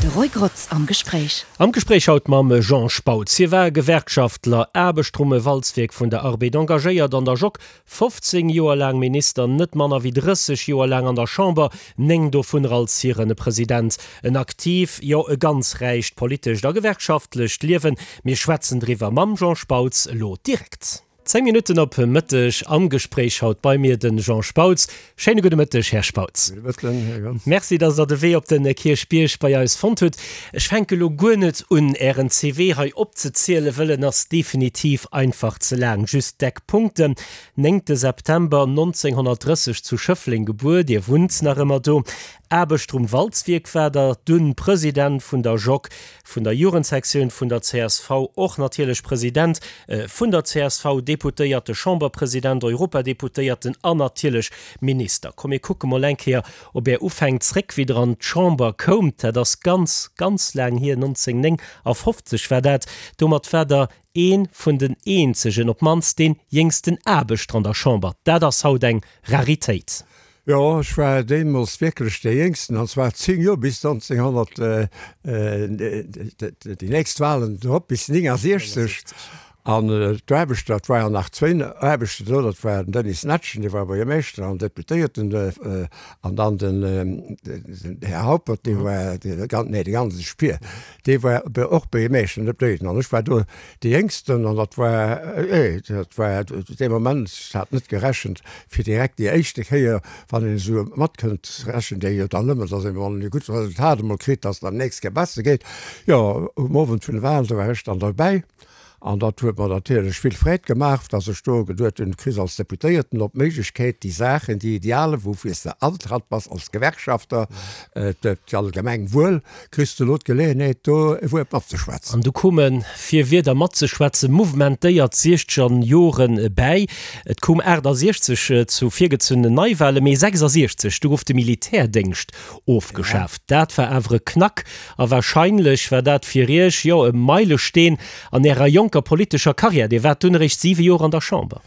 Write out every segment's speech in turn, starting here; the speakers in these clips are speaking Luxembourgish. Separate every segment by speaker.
Speaker 1: De Roy Grotz am Gespréich.
Speaker 2: Am Gespréich haut mam Jean Spautz. Hie war Gewerkschaftler, Aarbechter um Walzwierk vun der Arbed, engagéiert an der Jock, 15 Joer laang Minister, net manner wéi 30 Joer laang an der Chamber, 9 dovunner als hiren President. En aktiv, jo e ganz räicht politescht a gewerkschaftlecht Liewen. Mir schwätzen driwwer mam Jean Spautz elo direkt. 10 Minutten op Mëtteg, am Gespréich haut bei mir den Jean Spautz. Schéine gudde Mëtteg, Här Spautz.
Speaker 3: Gudde Mëtten, Här Grotz.
Speaker 2: Merci, dass Der de Wee op de Kierchbierg bei eis fonnt hutt. Ech fänke lo guer net un, Ären CV hei opzezielen, wëll en ass definitiv einfach ze laang. Just d'Eckpunkten, Néngte September 1930 zu Schëffleng gebuer, Dir wunnt nach ëmmer do, Aarbechter um Walzwierk war Der, dunn President vun der JOC, vun der Jugendsektioun vun der csv, och natierlech President vun der csv, Deputéierte, Chamberpresident, Europadeputéierten an natierlech Minister. Komm mir kucke mol eng Kéier op Är Ufäng zréck, wéi Der an d'Chamber koumt. Dat ass ganz, ganz laang hier, 1959 war dat. Domat war Der ee vun den eenzegen, op d'mannst dee jéngsten Aarbechter an der Chamber. Dat ass haut eng Raritéit.
Speaker 3: Jo, ech war deemools wierklech dee Jéngsten, an zwar 10 Joer, bis 1900, déi nächst Wahlen drop, bis 69. An d'Aarbechter, et war jo nach zwéin Aarbechter do, dat war den Denis Netschen, dee war Buergermeeschter an Deputéierten, an dann den Här Haupert, dee war, nee, de Gansesch Pier, dee war och Buergermeeschter an Deputéierten. An ech war do dee Jéngsten an dat war, dat war dee Moment, ech hat net gerechent, fir direkt déi éischte Kéier, wann een esou matkënnt, rechent ee jo dann ëmmer, datt ee wann een e gutt Resultat emol kritt, datt et dann d'nächst Kéier besser geet. Jo, um Owend vun de Wahlen, do war ech dann derbäi an dat huet mer natierlech vill Freed gemaach, datt ech do geduet hunn, du kriss als Deputéierten och d'Méiglechkeet, déi Saachen, déi Idealen, woufir s de antratt bass als Gewerkschafter, d'allgemeng Wuel, Kriss de elo d'Geleeënheet do e Wuert matzeschwätzen?
Speaker 2: An du koume fir Wierder matzeschwätzen mouvementéiert siechzeger Joren bäi. Et koum 68 zu virgezunnenen Neiwahlen, mee 66, du gouf de Militärdéngscht ofgeschaaft. Dat war awer e Knack a wahrscheinlech war dat fir Iech, jo, e Meilesteen an Ärer jonker politescher Karriär. Dir waart dunn eréischt siwe Joer an der Chamber.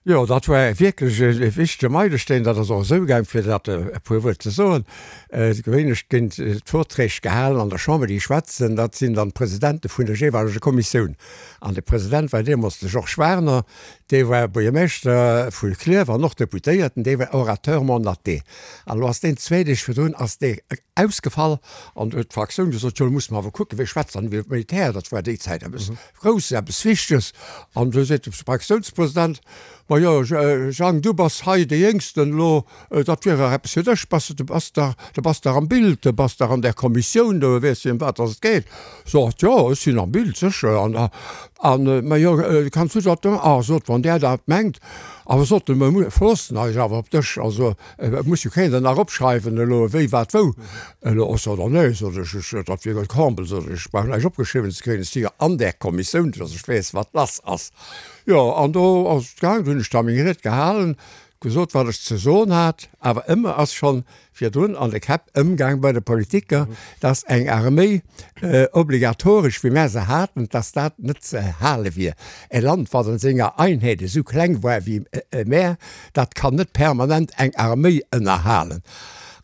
Speaker 3: Jo, dat war wierklech e wichtege Meilesteen. Dat ass och esou gaang, fir dat e puer Wuert ze soen. Gewéinlech ginn d'Vorträg gehalen an der Chamber, déi schwätzen, dat sinn dann d'Presidente vun der jeeweileger Kommissioun. An de President war deemools de Georges Werner, dee war Buergermeeschter vu Klierf an och Deputéierten, dee war Orateur mandaté. An elo ass deen zwéi Deeg virdrun ass dee ausgefall an du huet d'Fraktioun gesot, jo, elo musse mer awer kucken, wee schwätzt dann iwwer d'Militär, dat war déi Zäit eppes Grouss, eppes Wichteges. An du seet de Fraktiounspresident, Ma jo, Jang, du bass hei dee Jéngsten elo, dat wier dach eppes fir dech, bass de, bass dach, du bass dach am Bild, du bass dach an där Kommissioun do, weess de, ëm wat dass et geet. Sot, Jo, ech sinn am Bild, sécher. An, an, ma jo, kanns du dat da, ah, sot, wann där dat mengt, awer sot en, mer verloossen eis awer op dech, also Et muss jo keen der nach opschreiwen elo wéi wat wou. Elo och sot er, nee, sot ech, ech, dat wier e Comble, sot ech, ech brauch näischt opgeschriwwen ze kréien, ech si jo an där Kommissioun, dass ech weess wat lass ass. Jo, an do ass et gaang, do hunn ech da meng Ried gehalen, gesot wat ech ze soen hat, awer ëmmer ass schonn virdrun an de Käpp ëmgaang bei de Politiker, dass eng Arméi obligatoresch, wéi mär se haten, dass dat net ze hale wier. E Land, wat an senger Einheet esou kleng war wéi mär, dat kann net permanent eng Arméi ënnerhalen.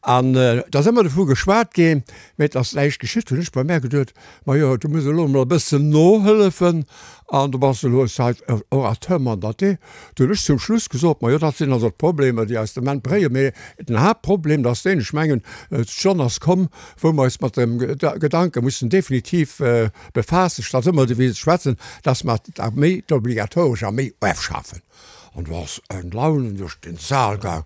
Speaker 3: An et ass ëmmer dovu geschwat ginn, mä et ass näischt geschitt. Hunn ech bei mär geduet, Majo, du muss elo emol e bëssen nohëllefen an du bass elo seit Orateur mandaté. Du hunn ech zum Schluss gesot, Majo, dat sinn also d'Problemer, déi eis de Moment bréien. Mee den Haaptproblem, dat ass deen, ech mengen, d'Stonn ass komm, wou mer eis mat dem Gedanke mussen definitiv befaassen, statt ëmmer doriwwer ze schwätzen, dass mer d'Arméi, d'obligatoresch Arméi ofschafen. An do ass eng Laun duerch den Saal gaang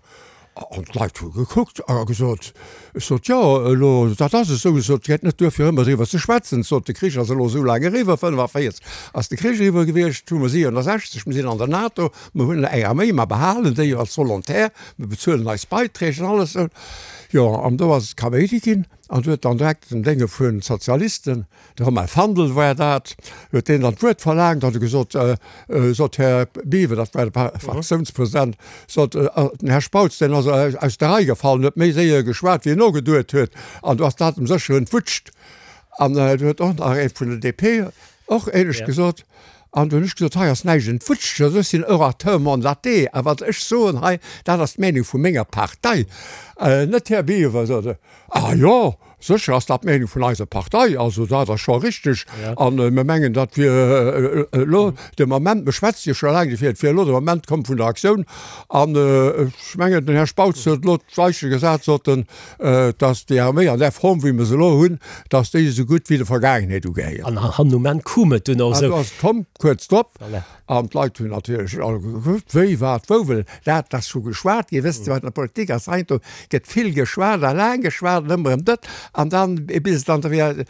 Speaker 3: an d'Leit hu gekuckt a gesot, ech sot, jo, elo, dat ass esou, ech sot, et geet net duer fir ëmmer driwwer ze schwätzen, ech sot, de Krich ass elo esou laang eriwwer, 45 ass de Krich eriwwer gewiescht, hu mer 67, mer sinn an der NATO, mer hunn eng Arméi, mer behalen déi jo als Volontaire, mer bezuelen eis Beiträg an alles esou. Jo, an do ass et Kaméidi ginn an do huet dann direkt den Dénge vun Sozialisten, De Romain Fandel war dat, huet deen dann d'Wuert verlaangt, hat e gesot, sot, Här Biwer, dat war de Fraktiounspresident, sot, den Här Spautz, deen ass aus der Rei gefallen, huet méi séier geschwat, wéi en nogeduet huet, an do ass dat em sécher entwutscht. An du huet och nach ee vun der DP och ähnlech gesot. An do hunn ech gesot, hei ass näischt entwutscht, also ech sinn Orateur mandaté a wat ech soen hei, dat ass d'Meenung vu menger Partei, net Här Biever, sot e, ah jo, sécher ass dat d'Meenung vun eiser Partei, also dat ass scho richteg a mir mengen, dat wier elo de Moment, mir schwätze jo scho laang dofir, et wier elo de Moment komm vun der Aktioun an ech mengen, den Här Spautz huet elo d'Weiche gesat, sot en, dass déi Arméi an där Form, wéi mer se elo hunn, dass déi esou gutt wéi der Vergaangenheet ugehéiert.
Speaker 2: An han um Enn koum et dunn och
Speaker 3: esou. An do ass et komm, kuerz drop. Voilà. An d'Leit hunn natierlech all gekuckt, wéi, wat, wou, well dat ass scho geschwat ginn. Wësst Dir, wat an der Politik ass, heiansdo gëtt vill geschwat a laang geschwat an ëmmer erëm dat an dann, bis et dann da wéi.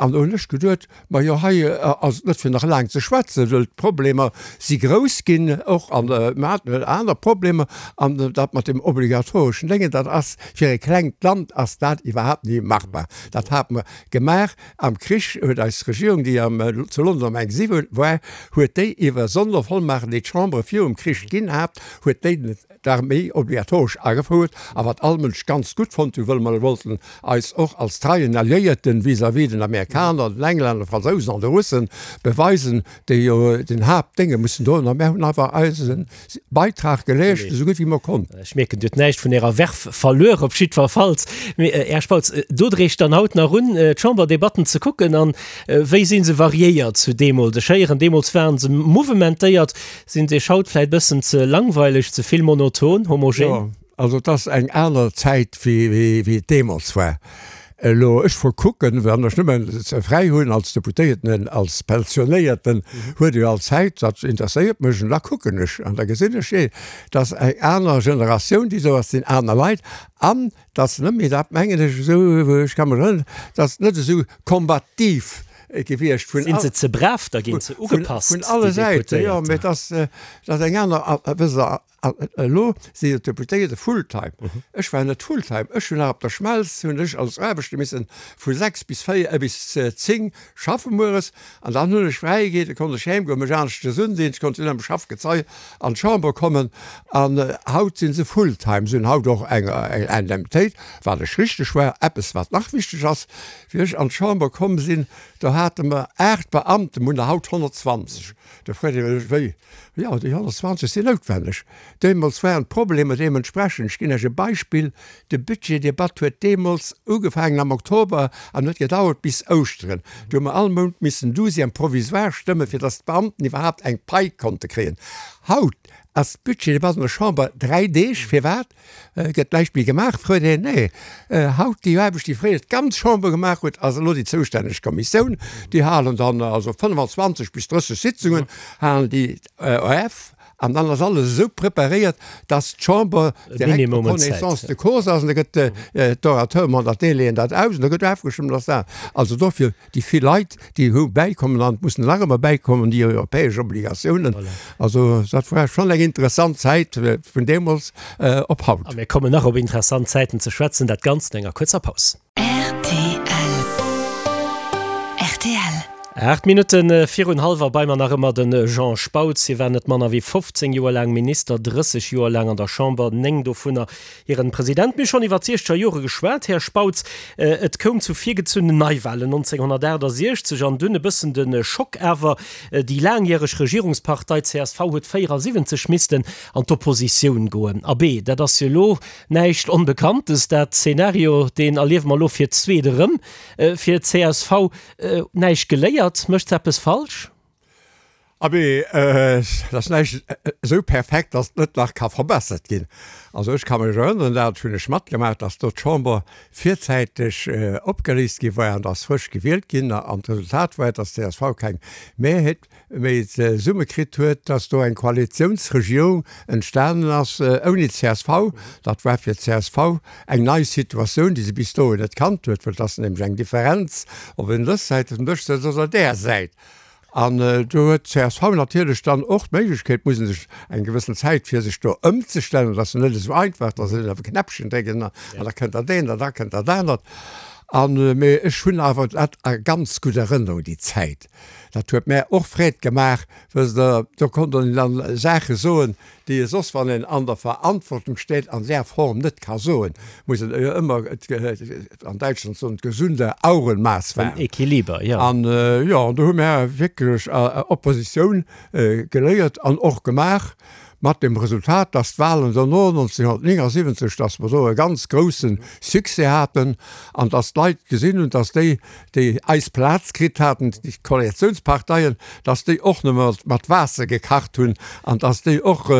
Speaker 3: An do hunn ech geduet, Majo, hei ass et net fir nach laang ze schwätzen, well d'Problemer si grouss ginn och an mer haten aner Problemer. An dat mat deem obligatoreschen Déngen, dat ass fir e klengt Land ass dat iwwerhaapt ni machbar. Dat hate mer gemaach am Krich, huet eis Regierung, déi am zu London am Exil war, huet déi iwwer Sondervollmachten, déi d'Chambre virum Krich ginn hat, huet déi d'Arméi obligatoresch agefouert, a wat all Mënsch ganz gutt fonnt hu, wëll mer wollten eis och als treien Alliéierten vis-à-vis den Amerikaner, den Englänner, de Fransousen an de Russen beweisen, déi jo den Haaptdénge mussen droen. A mär hunn einfach eise Beitrag geleescht, esou gutt wéi mer konnten.
Speaker 2: Ech mierken, Dir hutt näischt vun Ärer Verve verluer, op jiddwerfalls. Mee, Här Spautz, do dreecht dann haut nach un, d'Chamberdebatten ze kucken. An wéi si se variéiert zu deemools? Ech héieren, deemools ware se mouvementéiert. Sinn se iech haut vläit bëssen ze langweileg, ze vill monoton, homogen?
Speaker 3: Jo, also et ass eng aner Zäit wéi et deemools war. Elo, ech verkucken, wann ech nëmmen fräi hunn als Deputéierten, als Pensionéierten, huet ee jo all Zäit, dat interesséiert mech an da kucken ech an da gesinn ech, jee, et ass eng aner Generatioun déi do ass, et sinn aner Leit an et ass net méi, dat mengen ech esou, ech ka mech erënneren, et ass net esou kombativ gewiescht
Speaker 2: vun Sinn se ze brav da ginn, ze ugepasst,
Speaker 3: vun alle Säiten, jo, mee et ass, et ass eng aner, wësst Der, elo si jo d'Deputéierte fulltime. Ech war net fulltime, ech hunn nach op der Schmelz hunn ech als Aarbechter missen vu 6 bis 4, bis 10 schaffe mueres an dann hunn ech fräi geet, da konnt ech heem goen, mech aneschters undinn, ech konnt dunn am Schaffgezei an d'Chamber kommen an haut si se fulltime, se hunn haut och eng Indemnitéit, wat ech richteg war. Eppes wat nach wichteg ass, Wéi ech an d'Chamber komm sinn, do hate mer 8 Beamten, mer hunn der haut 120. Do freet ee sech, wéi? Jo, déi 120 sinn noutwenneg. Deemools waren d'Problemer deementsprechend. Ech ginn Iech e Beispill, De Budgetdebatt huet deemools ugefaangen am Oktober an huet gedauert bis Ouschteren. Do hu mer all Mount missen Douzième provisoire stëmmen, fir datt d'Beamten iwwerhaapt eng Pai konnte kréien. Haut ass d'Budgetdebatt an der Chamber 3 Deeg. Firwat? Gëtt näischt méi gemaach, freet een. Nee, haut déi Aarbecht, déi fréier d'ganz Chamber gemaach huet, ass elo déi zoustänneg Kommissioun. Déi halen dann also 25 bis 30 Sitzungen halen déi of an dann ass alles esou preparéiert, dass d'Chamber direkt en connaissance de cause ass an da gëtt d'Orateur mandaté leeën dat aus an da gëtt ofgestëmmt ass dat. Also dofir Déi vill Leit, déi hu bäikommen an et mussen nach ëmmer bäikommen, déi europäesch Obligatiounen. Also dat war schonn eng interessant Zäit vun deemools op haut.
Speaker 2: A mir kommen nach op interessant Zäiten ze schwätzen, dat Ganzt no enger kuerzer Paus.
Speaker 1: Rtl.
Speaker 2: 8 Minutte virun hallwer bei mer nach ëmmer de Jean Spautz. Hie war net manner wéi 15 Joer laang Minister, 30 Joer laang an der Chamber, 9 dovunner Hiren President, Mir hu schonn iwwer d'siechzeger Jore geschwat, Här Spautz. Et koum zu virgezunnen Neiwahlen 1968 an dunn e bëssen de Schock awer, déi laangjäreg Regierungspartei csv huet 74 missten an d'Oppositioun goen. Abee, dat ass jo elo näischt Onbekanntes, dat Szenario, deen erliewe mer elo fir d'zweet erëm. Fir csv näischt geléiert, mécht se eppes falsch?
Speaker 3: Abee, et ass näischt esou perfekt, datt et net nach ka verbessert ginn. Also ech ka mech erënneren, dat hunn ech matgemaach, datt do d'Chamber virzäiteg opgeléist gi war an datt frësch gewielt ginn. An d'Resultat war, datt csv keng Mehrheet méi zesumme kritt huet, datt do eng Koalitiounsregierung entstanen ass ouni csv. Dat war fir csv eng nei Situatioun, déi se bis dohin net kannt huet, well et ass nämlech eng Differenz, ob een dës Säit vum Dësch sëtzt oder där Säit. An do huet d'CSV natierlech dann och d'Méiglechkeet, muss e sech eng gewëssen Zäit fir sech do ëmzestellen, dat ass jo net esou einfach, dass een op e Knäppchen dréckt an da kënnt dat eent an da kënnt dat anert. An, mee ech hunn awer dat a ganz gutt Erënnerung, déi Zäit. Dat huet mär och Freed gemaach, wësst Der, do konnt een dann Saache soen, déi ee soss, wann een an der Verantwortung steet, an där Form net ka soen. Muss een jo ëmmer, an Däitschland soen, gesunde Augenmaß
Speaker 2: wahren. En Equiliber, jo.
Speaker 3: An, jo, an do hu mär wierklech Oppositioun geléiert an och gemaach. Mat dem Resultat, dass d'Wahlen dono 1979, dass mer do e ganz grousse Succès haten an dass d'Leit gesinn hunn, dass déi, déi eis Plaz kritt haten, déi Koalitiounsparteien, dass déi och nëmme mat Waasser gekacht hunn an dass déi och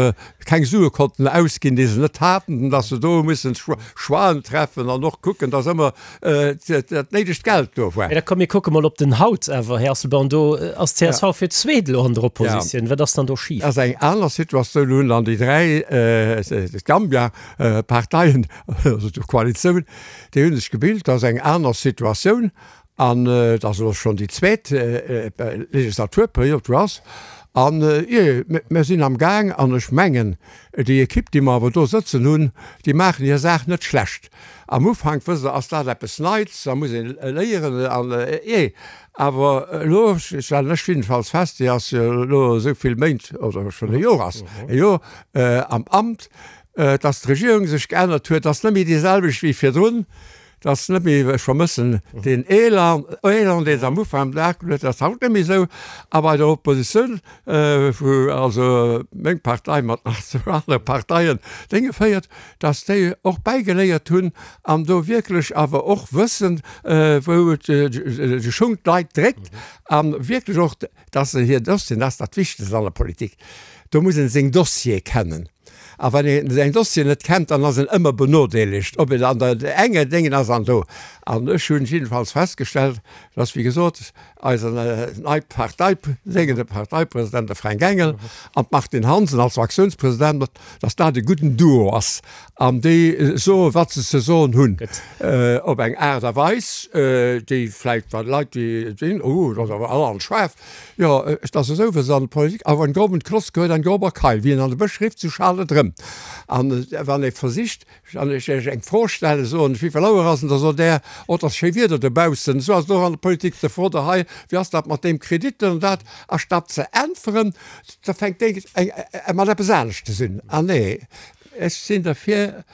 Speaker 3: keng Sue konnten ausginn, déi se net haten, dass se do hu mussen Choixen treffen an och kucken, dass ëmmer dat néidegt Geld do war.
Speaker 2: Mä da komm mir kucke mol op den Haut awer, Här Asselborn. Do ass d'CSV fir d'zweet elo an der Oppositioun. Wat ass dann do schif?
Speaker 3: Ass eng aner Situatioun. Elo hunn dann déi 3 Gambia-Parteien, also d'Koalitioun, déi hu sech gebilt. Dat ass eng aner Situatioun an et ass elo schonn déi zweet Legislaturperiod wou ass. An jee, mir sinn am Gaang an ech mengen, déi Ekipp, déi mer awer do sëtzen hunn, déi maachen hir Saach net schlecht. Am Ufank, wësst Der, ass dat eppes Neits, da muss een léieren an jee. Awer elo stellen ech jiddefalls fest, déi ass jo elo esou vill Méint oder schonn e Jor ass e Jor am Amt, dass d'Regierung sech geännert huet, ass net méi déi selwecht wéi virdrun. Dat ass net méi, ech vermëssen deen Elan, Elan, deen se am Ufank am Dag huet, dat ass haut net méi esou. A bei der Oppositioun, wou also meng Partei mat nach zwou anere Parteien Dénge féiert, dass déi och bäigeléiert hunn an do wierklech awer och wëssen, wou de Schung d'Leit dréckt a wierklech och, dass se hir Dossieren, dat ass dat Wichtegst an der Politik, do muss ee seng Dossiere kennen. A wann een säin Dossier net kennt, dann ass en ëmmer benodeelegt, ob en an der enger Déngen ass an do. An ech hunn jiddefalls festgestellt, dass, wéi gesot, eisen nei Partei, Déngen, de Parteipresident, de Fränk Engel, an d'Martine Hansen als Fraktiounspresident, dass dat e gudden Duo ass an déi soen, wat se ze soen hunn, op eng Aart a Weis, déi vläicht bei Leit, déi sinn, oh, dat ass awer allerhand schaarf, Jo, et ass esou, wéi se an der Politik, Auf einen groben Kloss gehört ein grober Keil. Wien an de Bësch rifft, sou schaalt et erëm. An wann ee versicht, wann ech Iech eng Fro stellen, soen, Wéivill Auer ass en? Da sot Der, Oh, et ass schéi Wieder dobaussen. Esou ass et och an der Politik. Da frot Der hei, Wéi ass dat mat deem Kredit an dat? A statt ze äntweren, da fänkt dee mat eppes aneschtes un. Ah nee, ech sinn derfir,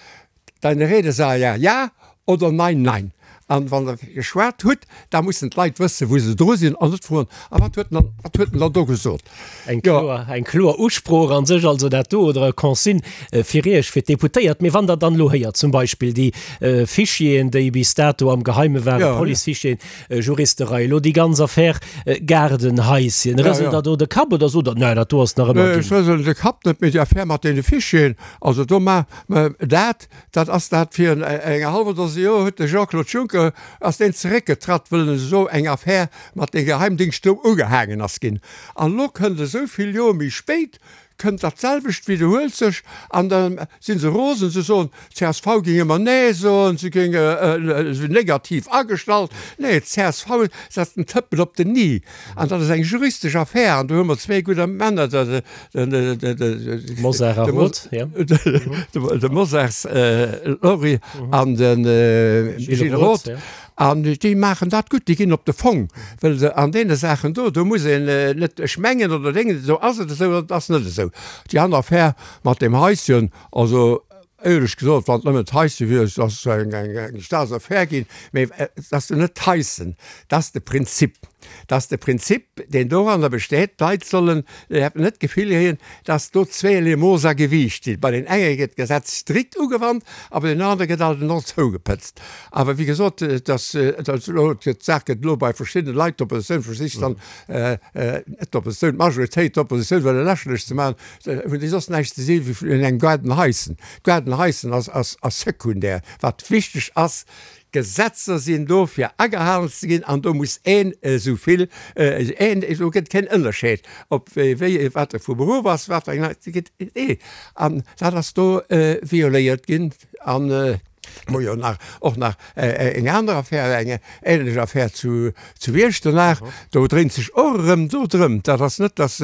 Speaker 3: Deine Rede sei ja, ja oder nein, nein. An wann Der geschwat hutt, da mussen d'Leit wëssen, wou se dru sinn an net froen, A wat huet en dann, wat huet en dann do gesot?
Speaker 2: Eng kloer, eng kloer Usprooch a sech also dat do, oder e Consigne fir Iech, fir d'Deputéiert. Mee wann Der dann elo héiert, zum Beispill déi Fichieren, déi bis dato am Geheime waren, Policefichieren, Juristerei, elo déi ganz Affär Gaardenhaischen, rëselt Der do de Kapp oder sot Der, Nä, dat do ass nach ëmmer
Speaker 3: dünn? Ech rëselen de Kapp net, mee déi Affär mat deene Fichieren, also do ma, Mä dat, dat ass dat, virun enger hallwer Dose Joer huet de Jean-Claude Juncker, ass deen zeréckgetratt, wëll en esou eng Affär mat de Geheimdingscht do ugehaangen ass ginn. An elo kënnt esou vill Joer méi spéit, kënnt dat selwecht, widderhuelt sech, an da si se rosen, se soen, d'CSV géing ëmmer Nee soen, se géing negativ agestallt. Nee, d'CSV setzt en Tëppel op den i. An dat ass eng juristesch Affär, an do hu mer zwee gudder Männer, de
Speaker 2: Mosar a Roth,
Speaker 3: ja. De Mosars Laurie an de Gilles Roth. An déi maachen dat gutt, déi ginn op de Fong, well se an deene Saachen do, do muss een net ech mengen oder dengen, esou ass et esou oder et ass net esou. Déi aner Affär mat deem Haischen, also Éierlech gesot, wann et nëmmen d'Heisse wier, et ass eng Staatsaffär ginn, mee et ass jo net d'Heissen, et ass de Prinzip. Et ass de Prinzip, deen doranner besteet, d'Leit sollen net d'Gefill kréien, datt do zweeërlee Mooss a Gewiicht sinn. Bei den enge gëtt d'Gesetz strikt ugewannt a bei den anere gëtt alt en och zougepëtzt. Awer wéi gesot, et ass elo, d'Saach gëtt elo bei verschiddene Leit, d'Oppositioun versicht dann, net d'Oppositioun, d'Majoritéit, d'Oppositioun wëlle lächerlech ze maachen, Hunn déi soss näischt ze si wéi vun engem Gaardenhaischen. D'Gaardenhaischen ass ass sekundär. Wat wichteg ass, Gesetzer sinn do fir agehalen ze ginn an do muss een esou vill een, do gëtt keen Ënnerscheed ob wéi wat e vu Beruff ass, wat fir eng, gëtt ee an dat ass do violéiert ginn an. Mer jo nach och nach eng aner Affär, eng ähnlech Affär zu zu Iechternach. Do dréint sech och erëm do drëm. Dat ass net, datt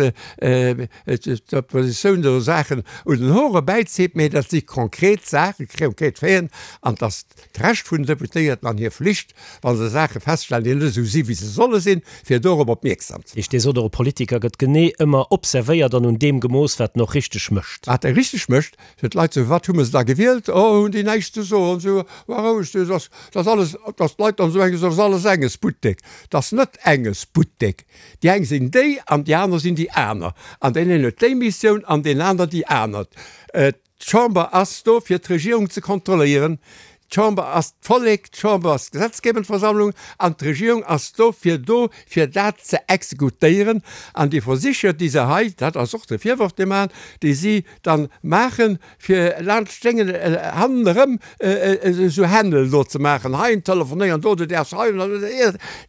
Speaker 3: d'Oppositioun do Saachen un den Hoer erbäizitt, mee dat si konkret Saachen, konkret Faiten an et ass d'Recht vun den Deputéierten an hir Flicht, wa se Saache feststellen, déi net esou si wéi se solle sinn, fir dorop opmierksam ze
Speaker 2: maachen. Dir sot och, e Politiker gëtt genee ëmmer observéiert an un deem gemooss, wat en och richteg mécht.
Speaker 3: Wat e richteg mécht, Fir d'Leit sou, wat hu mer se da gewielt? Oh, hunn déi näischt ze soen, sou, war roueg, du, dass, dass alles, dass d'Leit dann esou mengen, dass alles enges Buttek. Dass net enges Buttek. Déi eng sinn déi an déi aner sinn déi aner. An deen een huet déi Missioun an deen aner déi aner. D'Chamber ass do, fir d'Regierung ze kontrolléieren. D'Chamber ass d'Vollek, d'Chamber ass d'gesetzgebend Versammlung an d'Regierung ass dofir do, fir dat ze exekutéieren. An déi Versicher, déi se hei, dat ass och de Virworf, dee mer maachen, déi si dann maachen, fir laanscht d'Déngen hannenerëm esou Händel do ze maachen, hei telefonéieren, do, du däerfs hei,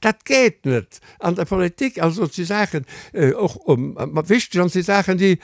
Speaker 3: dat geet net. An der Politik, also et si Saachen och wichteg an et si Saachen, déi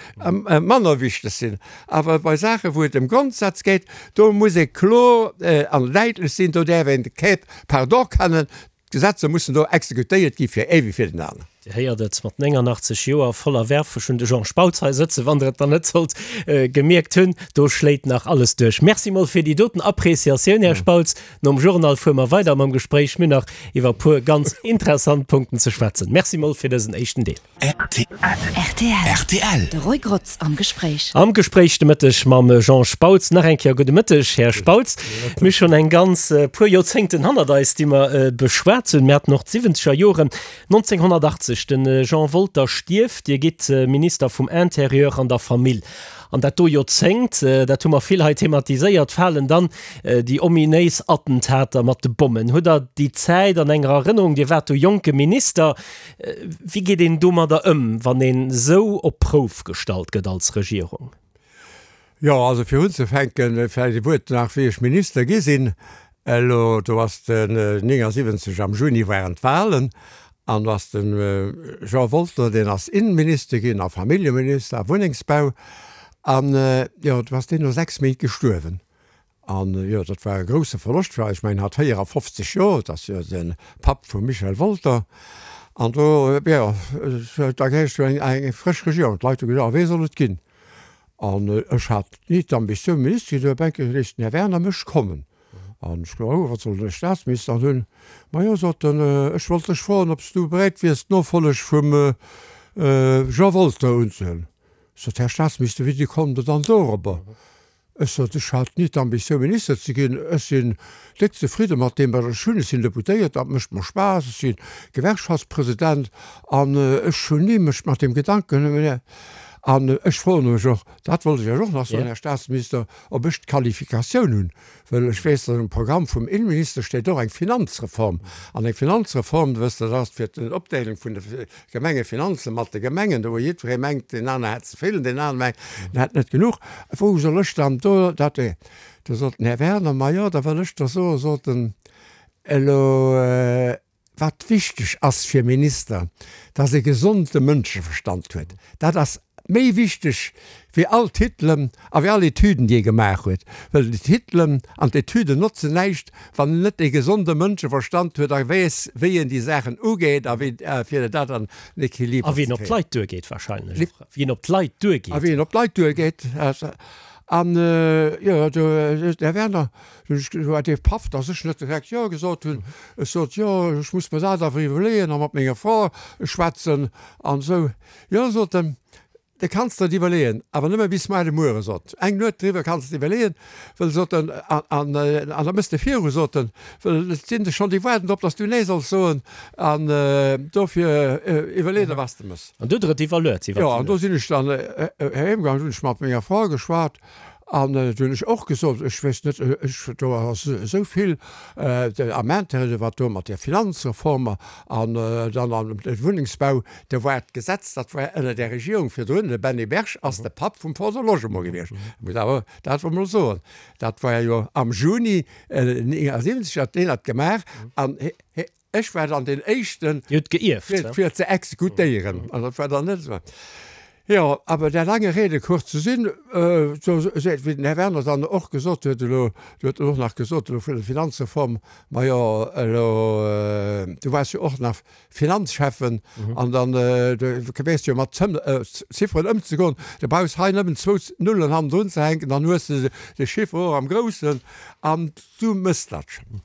Speaker 3: manner wichteg sinn. Awer bei Saachen, wou et ëm Grondsätz geet, do muss ee kloer an däitlech sinn, do däerf een kee Pardon kennen. D'Gesetzer mussen do exekutéiert gi fir ee wéi fir den aneren.
Speaker 2: Dir héiert et, mat 89 Joer voller Werf, ech hunn de Jean Spautz hei sëtzen, wann Der et dann net sollt gemierkt hunn, do schléit nach alles duerch. Merci mol fir déi doten Appréciatioun, Här Spautz. Nom Journal fuere mer weider mam Gespréich. Mir hunn nach iwwer e puer ganz interessant Punkten ze schwätzen. Merci mol fir dësen éischten Deel.
Speaker 1: Rtl. De Roy Grotz am Gespréich.
Speaker 2: Am Gespréich de Mëtteg mam Jean Spautz. Nach eng Kéier gudde Mëtteg, Här Spautz. Mir hu schonn eng ganz puer Joerzéngten hannert eis, déi mer beschwat hunn. Mir haten och d'siwwenzeger Joren. 1980, de Jean Wolter stierft, Dir gitt Minister vum Interieur an der Famill. An dat do Joerzéngt, dat hu mer vill hei thematiséiert, falen dann déi ominéis Attentater mat de Bommen. Hutt Der déi Zäit an enger Erënnerung? Dir waart do jonke Minister. Wéi geet een domadder ëm, wann een esou op d'Prouf gestallt gëtt als Regierung?
Speaker 3: Jo, also fir unzefänken, vläicht e Wuert nach, wéi ech Minister gi sinn. Elo, do ass den 79 am Juni waren d'Wahlen an do ass de Jean Wolter, deen ass Innenminister ginn a Familljeminister a Wunnengsbau an, jo, do ass deen no 6 Méint gestuerwen. An, jo, dat war e grousse Verloscht fir eis. Ech mengen, hat 54 Joer, dat ass jo de Papp vum Michel Wolter. An do, jo, da gehéiert jo eng frësch Regierung. D'Leit hu gesot, a wee soll et ginn? An ech hat ni d'Ambitioun, Minister ze ginn, du Bänke léisst den Här Werner mech kommen. An ech gesot, oh, wat soll den e Staatsminister an hunn? Majo, sot en, ech wollt dech froen, ob s du bereet wiers, d'Nofolleg vum Jean Wolter unzehuelen. Sot, Här Staatsminister, wéi kommt Der dann dorobber? Ech sot, ech hat ni d'Ambitioun Minister ze ginn. Ech sinn déck zefridde mat deem wat ech hunn. Ech sinn Deputéiert, dat mécht mer Spaass. Ech si Gewerkschaftspresident an ech hunn ni mech mat deem Gedanken, an ech froe mech och, dat wollt ech Iech och nach soen, Här Staatsminister, ob ech d'Qualifikatioun hunn, well ech weess, datt um Programm vum Innenminister steet och eng Finanzreform. An eng Finanzreform, wësst Der, dat ass fir d'Opdeelung vun de Gemengefinanze mat de Gemengen, do wou jiddweree mengt, deen anere hätt ze vill an deen anere mengt, en hätt net genuch. Wou soll ech dann do dat. Do sot den Här Werner, Ma jo, da wëll ech der soen, sot en, elo wat wichteg ass fir Minister, dass e gesonde Mënscheverstand huet. Dat ass méi wichteg wéi all Titelen a wéi all Etüden, déi ee gemaach huet. Well déi Titelen an d'Etüden notzen näischt, wann en net e gesonde Mënscheverstand huet a weess, wéi en déi Saachen ugeet a wéi fir dat an den Equiliber
Speaker 2: ze kréien. A wéi en op d'Leit duergeet wahrscheinlech och. Wéi en op d'Leit duergeet.
Speaker 3: A wéi en op d'Leit duergeet. An, jo, do, Här Werner, du huet dee Paff, dass ech net direkt Jo gesot hunn. Ech sot, Jo, ech muss mer dat awer iwwerleeën a mat menger Fra schwätzen an esou. Jo, sot en, de kanns der et iwwerleeën, awer nëmme bis muar de Muere, sot eng Nuet driwwer kanns de iwwerleeën, wëll, sot en, an an da mëss de viru, sot en, wëll et sinn der schonn, déi waarden drop, datt s du nee solls soen, an dofir iwwerlee der, wat s de mëss.
Speaker 2: An du huet der et iwwerluet
Speaker 3: iwwer déi Nuet? Jo, an do sinn ech dann heem gaangen, hunn ech mat menger Fra geschwat, An do hunn ech och gesot, ech weess net, ech, do ass esou vill am Intérêt, wat do mat där Finanzreform an dann am Wunnengsbau, do war d'Gesetz, dat war ënner där Regierung virdrun, de Benny Berg ass de Papp vum Fonds de Logement gewiescht, muss awer dat emol mol soen. Dat war jo am Juni 79, hat deen dat gemaach an ech war dann deen Éischten,
Speaker 2: Dir hutt geierft,
Speaker 3: fir ze exekutéieren. An dat war dann net esou. Jo, awer der lange Rede kurze Sinn, do seet, wéi den Här Werner dann och gesot huet elo, du huet en och nach gesot elo vun der Finanzreform, majo elo, du waars jo och nach Finanzschäffen an dann du weess jo mat Zifferen ëmzegoen, du brauchs hei nëmmen zwou Nullen hannendrun ze hänken, dann hues de de Chiffre och am Groussen an du méchs dat schonn.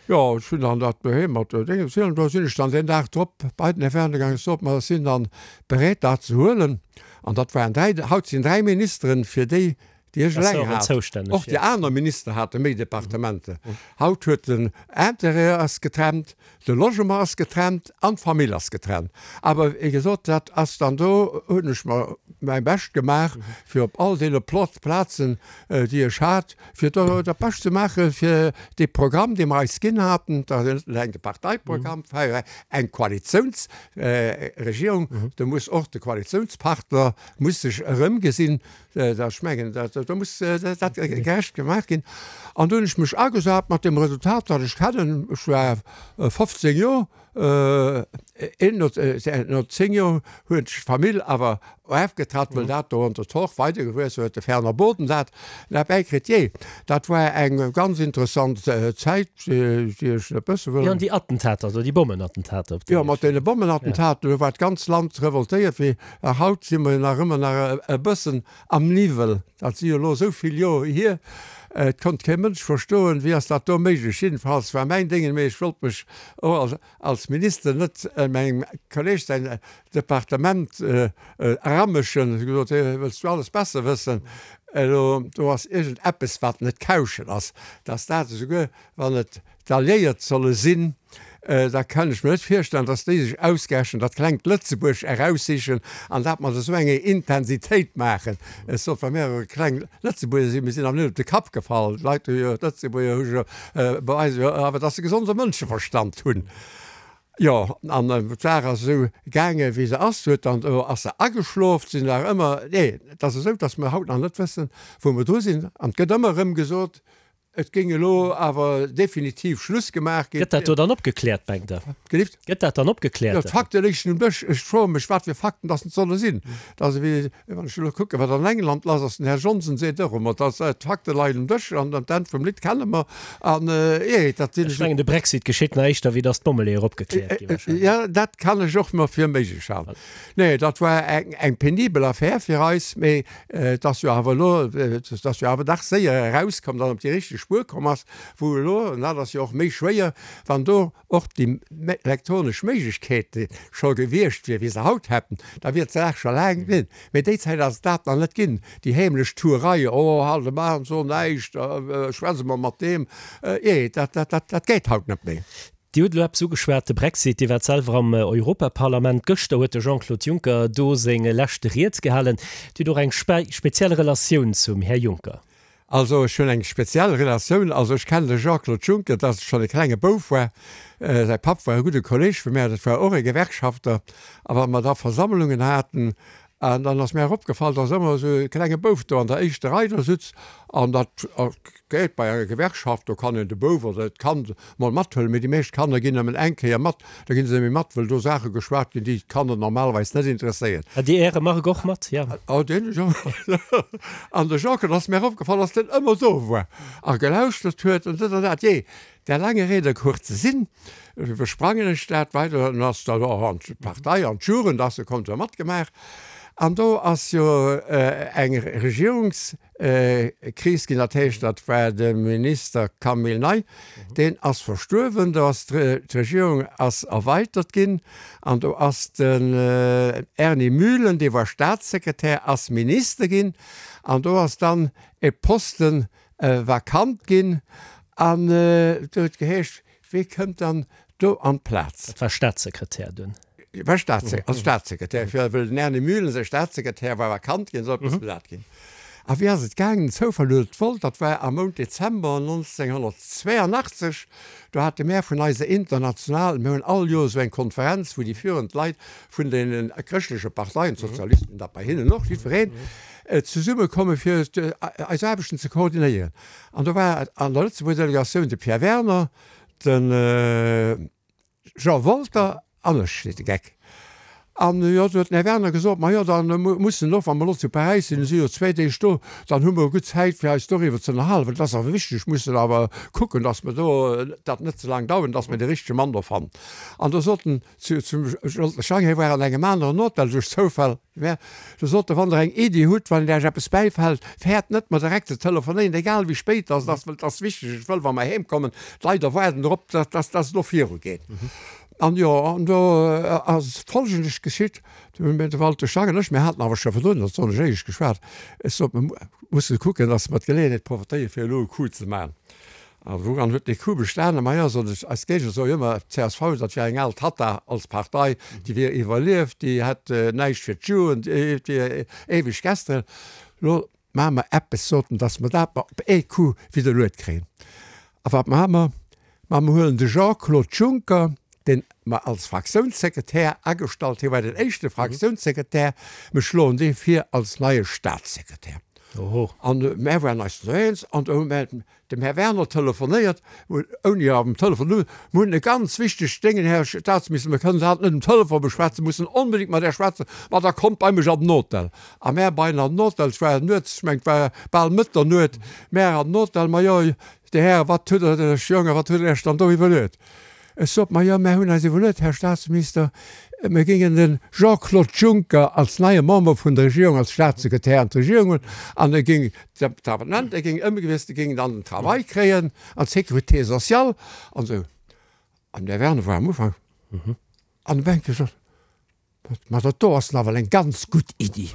Speaker 3: Jo, ech hunn dann dat doheem mat Déngen ze hunn. Do sinn ech dann deen Dag drop bei den Här Werner gaangen, sot mer, ech sinn dann bereet dat ze huelen. An dat waren dräi, haut sinn dräi Ministeren fir déi, déi ech eleng hat. Och déi aner Minister hate méi Departementer. Haut huet den Intérieur ass getrennt, de Logement ass getrennt an d'Famill ass getrennt. Awer wéi gesot, dat ass dann do hunn ech mer mäi Bescht gemaach, fir op all deene Plazen, déi ech hat, fir do dat Bescht ze maache fir dee Programm, dee mer eis ginn haten, dat ass net eleng de Parteiprogramm, war eng Koalitiounsregierung, do muss och de Koalitiounspartner muss sech erëmgesinn, dat ech mengen, dat do muss dat gerecht gemaach ginn. An do hunn ech mech agesat mat deem Resultat, dat ech kennen, ech war 15 Joer, Een no 10 Joer huet d'Famill awer erfgetratt, wëll dat do an der Torf weidergewuess huet, de Fernand Boden dat bäikritt. Jee, dat war eng ganz interessant Zäit, déi ech net mësse wëll.
Speaker 2: Jo, an déi Attentater do, déi Bommenattentater op
Speaker 3: déi. Jo, mat deene Bommenattentater, do war d'ganz Land revoltéiert. Wéi haut si mer nach ëmmer nach e bëssen am Niwwel. Dat si jo elo esou vill Joer hier. Et konnt kee Mënsch verstoen, wéi ass dat do méiglech. Jiddefalls war mäin Déngen, mee ech wollt mech och als Minister net mengem Kolleg säin Departement eramëschen. Ech hu gesot, Hé, wëlls du alles besser wëssen? Elo, do ass iergend eppes, wat net kauschen ass, dass dat esouguer, wann et d'Alliéiert solle sinn, da kann ech mir net virstellen, datt déi sech ausgerechent dat klengt Lëtzebuerg eraussichen an dat mat esou enger Intensitéit maachen. Ech sot, wa mir e kleng Lëtzebuerger sinn, mir sinn awer net op de Kapp gefall, d'Leit hu jo, d'Lëtzebuerger hu jo, beweise jo awer, datt se gesonde Mënscheverstand hunn. Jo, an d'Saach ass esou gaange wéi se ass, huet dann, do ass se ageschlof, sinn nach ëmmer, nee, et ass esou, datt mer haut nach net wëssen, wou mer dru sinn an et gëtt ëmmer erëm gesot, Et géing elo awer definitiv Schluss gemaach ginn.
Speaker 2: Gëtt dat do dann opgekläert, mengt Der?
Speaker 3: Gelift?
Speaker 2: Gëtt dat dann opgekläert?
Speaker 3: Jo, d'Fakte léichen um Dësch. Ech froe mech, wat fir Fakten dass et solle sinn. Dat ass ewéi, wann ech elo kucken, wat an England lass ass. Den Här Johnson seet och ëmmer, dass d'Fakte leien um Dësch an d'Enn vum Lidd kenne mer. An, jee, dat
Speaker 2: sinn. Ech mengen, de Brexit geschitt nach éischter, wéi dass d'Bommeleeër opgekläert gi
Speaker 3: wahrscheinlech. Jo, dat kann ech och mer fir méiglech halen. Nee, dat war eng, eng penibel Affär fir eis, mee et ass jo awer elo, et ass jo awer dach séier erauskomm, datt en op déi richteg Spuer komm ass, wou elo, an dat ass jo och méi schwéier, wann do och déi elektronesch Méiglechkeete scho gewiescht wier, wéi se haut hätten, da wier d'Saach scho laang ginn. Mee déi Zäit ass et dat nach net ginn, déi heemlech Tuerei, oh, halt emol an, so näischt, schwätz emol mat deem, jee, dat, dat, dat, dat geet haut net méi.
Speaker 2: Dir hutt elo eppes ugeschwat, de Brexit. Dir waart selwer am Europaparlament. Gëschter huet de Jean-Claude Juncker do seng leschte Ried gehalen. Dir hutt och eng speziell Relatioun zum Här Juncker.
Speaker 3: Also ech hunn eng speziell Relatioun. Also ech kennen de Jean-Claude Juncker, dass ech schonn e klenge Bouf war. Säi Papp war e gudde Kolleg vu mär, dat war och e Gewerkschafter. A wa mer da Versammlungen haten, An dann ass mär opgefall, dass ëmmer esou e klenge Bouf do an der éischter Rei do sutz. An dat geet bei enger Gewerkschaft, do kann een de Bouf oder d'Kand mol mathuelen, mee déi meescht Kanner ginn nëmmen eng Kéier mat, da ginn se net méi mat, wëll do Saache geschwat ginn, déi d'Kanner normalerweis net interesséieren.
Speaker 2: Hat Dir Äre Marc och mat?
Speaker 3: Jo. Oh, deen ech och mat. An de Jean-Claude ass mär opgefall, dass deen ëmmer do war a gelauschtert huet an dët an dat. Jee, Der lange Rede kurzer Sinn, iwwersprangen ech dat weider, dann ass dat och an d'Partei, an d'Jugend ass e kommt jo matgemaach. An do ass jo eng Regierungskris ginn, dat heescht, dat war de Minister Camille Ney, deen ass verstuerwen, do ass d'Regierung ass erweitert ginn an do ass den Erny Mühlen, dee war Staatssekretär, ass Minister ginn an do ass dann e Posten vakant ginn an do huet geheescht, Wee kënnt dann do an d'Plaz?
Speaker 2: Dat war Staatssekretär dunn.
Speaker 3: War Staats, als Staatssekretär, fir wëll den Erny Mühlen säi Staatssekretär war vakant ginn, sollt eppes besat ginn. A wéi ass et gaangen? Den Zoufall huet et wollt, dat war am Mount Dezember 1982, do hate mär vun eiser International, mir hunn all Joer esou eng Konferenz, wou déi führend Leit vun deene chrëschtleche Parteien, d'Sozialisten, dat bei hinnen och, jiddwereen, zesumme komme fir eis Aarbechten ze koordinéieren. An do war an der Lëtzebuerger Delegatioun de Pierre Werner, de Jean Wolter an ech, seet de Geck. An jo, du huet den Här Werner gesot, ma jo, da mussen och, wa mer elo zu Paräis sinn, si jo zwéi Deeg do, dann hu mer gutt Zäit fir eis doriwwer ze ënnerhalen, well dat ass awer wichteg, mussen awer kucken, datt mer do dat net ze laang dauern, datt mer dee richtege Mann do fannen. An do sot en zu, zum Jean Schang, hie war an engem aneren Hotel duerch Zoufall, mä do sot e, wann Der eng Iddi hutt, wann Iech eppes bäifält, fäert net mer direkt ze telefonéieren, egal wéi spéit dass et ass, well et ass wichteg, ech wëll, wa mer heemkommen, d'Leit erwaarden drop, datt, datt et elo virugeet. An jo, an do ass Folgendes geschitt, Do hunn mir, de Walter Schang an ech, mir haten awer scho virdrun, dat soen ech éierlech geschwat, ech sot, mir musse kucken, datt mer d'Geleeënheet profitéieren, fir elo e Coup ze maachen. A wouran huet dee Coup bestanen? Majo, sot ech, eis Géigner soe jo ëmmer, d'CSV, dat wier eng al Tatta als Partei, déi wier iwwerlieft, déi hätt näischt fir d'Jugend, déi wier éiweg gesteren. Elo Maache mer eppes, sot en, dass mer dat mer op ee Coup widderluet kréien. A wat maache mer? Ma mer huelen de Jean-Claude Juncker, deen mer als Fraktiounssekretär agestallt, hie war den éischte Fraktiounssekretär, mer schloen dee vir als neie Statssekretär. An mär waren eis do eens an do hu mär Dem Här Werner telefonéiert, ouni am Telefon, Mir hunn e ganz wichtegt Déngen, Här Staatsminister, mir kënnen dat net um Telefon beschwätzen, mussen onbedéngt mat Iech schwätzen. Ma da kommt bei mech an den Hotel. A mär bei en an den Hotel, et war nuets, ech mengen, et war bal Mëtternuet, mär an den Hotel, Ma jo, Dir Hären, wat hutt Der Iech, Jongen, wat hutt Der Iech dann do iwwerluet? Ech sot, Ma jo, mär hunn eis iwwerluet, Här Staatsminister, mir géingen de Jean-Claude Juncker als neie Member vun der Regierung, als Staatssekretär an d'Regierung huelen an e géing d'Departement, e géing ëmgewiesselt, e géing dann den Travail kréien an d'Sécurité sociale an esou. An den Här Werner war am Ufank an de Bänke gesot, Ma dat do ass nawell eng ganz gutt Iddi.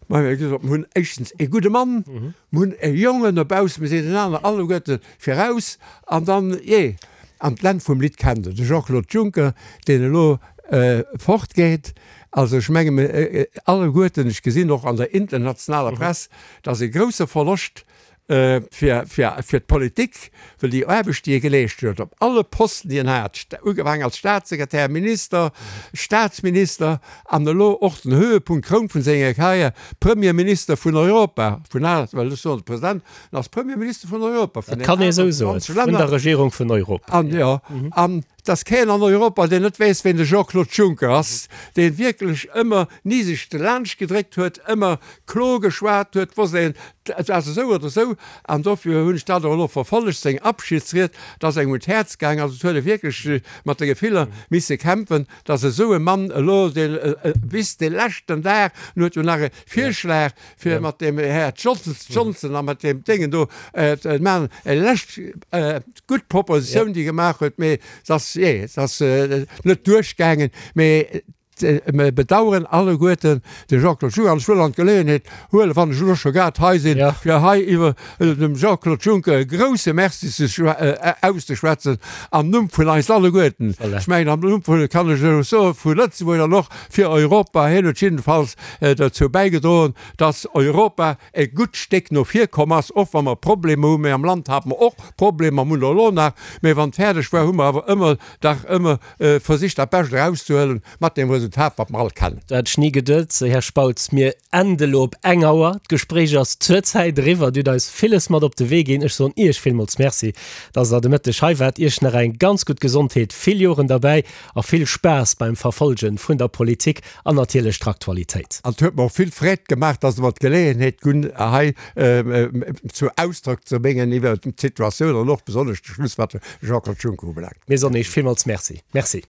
Speaker 3: Ma mir hu gesot, mir hunn éischtens ee gudde Mann, mir hunn e Jongen dobaussen, mir sinn den aneren alleguerte viraus an dann, jee. An d'Enn vum Lidd kennt Der, de Jean-Claude Juncker, deen elo fortgeet. Also ech menge mir alleguerten, ech gesinn och an der internationaler Press, dat ass e grouse Verloscht fir, fir, fir d'Politik, well déi Aarbecht, déi e geleescht huet, op alle Posten, déi en hat, ugefaangen als Staatssekretär, Minister, Staatsminister an elo och den Höhepunkt, d'Kroun vun senger Karriär, Premierminister vun Europa, vun al, well ech soen de President, en ass Premierminister vun Europa, vun
Speaker 2: Dat kann ee esou soen,
Speaker 3: 28 Länner.
Speaker 2: Vun der Regierung vun Europa.
Speaker 3: An, jo, an Et ass keen an Europa, deen net weess, ween de Jean-Claude Juncker ass, dee wierklech ëmmer ni sech delaanscht gedréckt huet, ëmmer kloer geschwat huet, wosst een, et ass esou oder esou. An dofir hunn ech dat och elo verfollegt, seng Abschiedsried, et ass engem un d'Häerz gaangen. Also et huet e wierklech mat de Gefiller misse kämpfen, datt esou e Mann elo, deen bis de leschten Dag, en huet jo nach e Virschlag fir mat dem Här Johnson a mat deem Déngen do ze maachen, e lescht gutt Propositioun, déi e gemaach huet, mee se ass, jee, se ass net duerchgaangen. Mee mir bedauern alleguerten de Jean-Claude Juncker. An ech wëll an d'Geleeënheet huelen, wann ech elo scho grad hei sinn, fir hei iwwer dem Jean-Claude Juncker e grouse Merci ze auszeschwätzen am Numm vun eis alleguerten. Ech mengen, am Numm vun, kann ech elo soen, vu Lëtzebuerg an och fir Europa. Hien huet jiddefalls dozou bäigedroen, dass Europa e gutt Stéck no vir komm ass, och wa mer Problemer hunn. Mee am Land hate mer och Problemer, mer hunn der elo nach. Mee wann et fäerdeg war, hu mer awer ëmmer dach ëmmer versicht, dat Bescht erauszehuelen, mat deem Resultat, wat mer all kennen.
Speaker 2: Dat hat ech ni geduet, Här Spautz. Mir ende elo op eng Auer. D'Gespréich ass zurzäit eriwwer. Dir hutt eis villes mat op de Wee ginn. Ech soen Iech villmools Merci, dass Der de Mëtteg hei waart. Iech nach eng ganz gutt Gesondheet, vill Joren derbäi a vill Spaass beim Verfolge vun der Politik an natierlech d'Aktualitéit.
Speaker 3: An et huet mer och vill Freed gemaach, dass Der mer d'Geleeënheet gunn, hei zu Ausdrock ze bréngen iwwert d'Situatioun an och besonnesch de Schluss, wat de Jean-Claude Juncker ubelaangt.
Speaker 2: Mir soen Iech villmools Merci. Merci.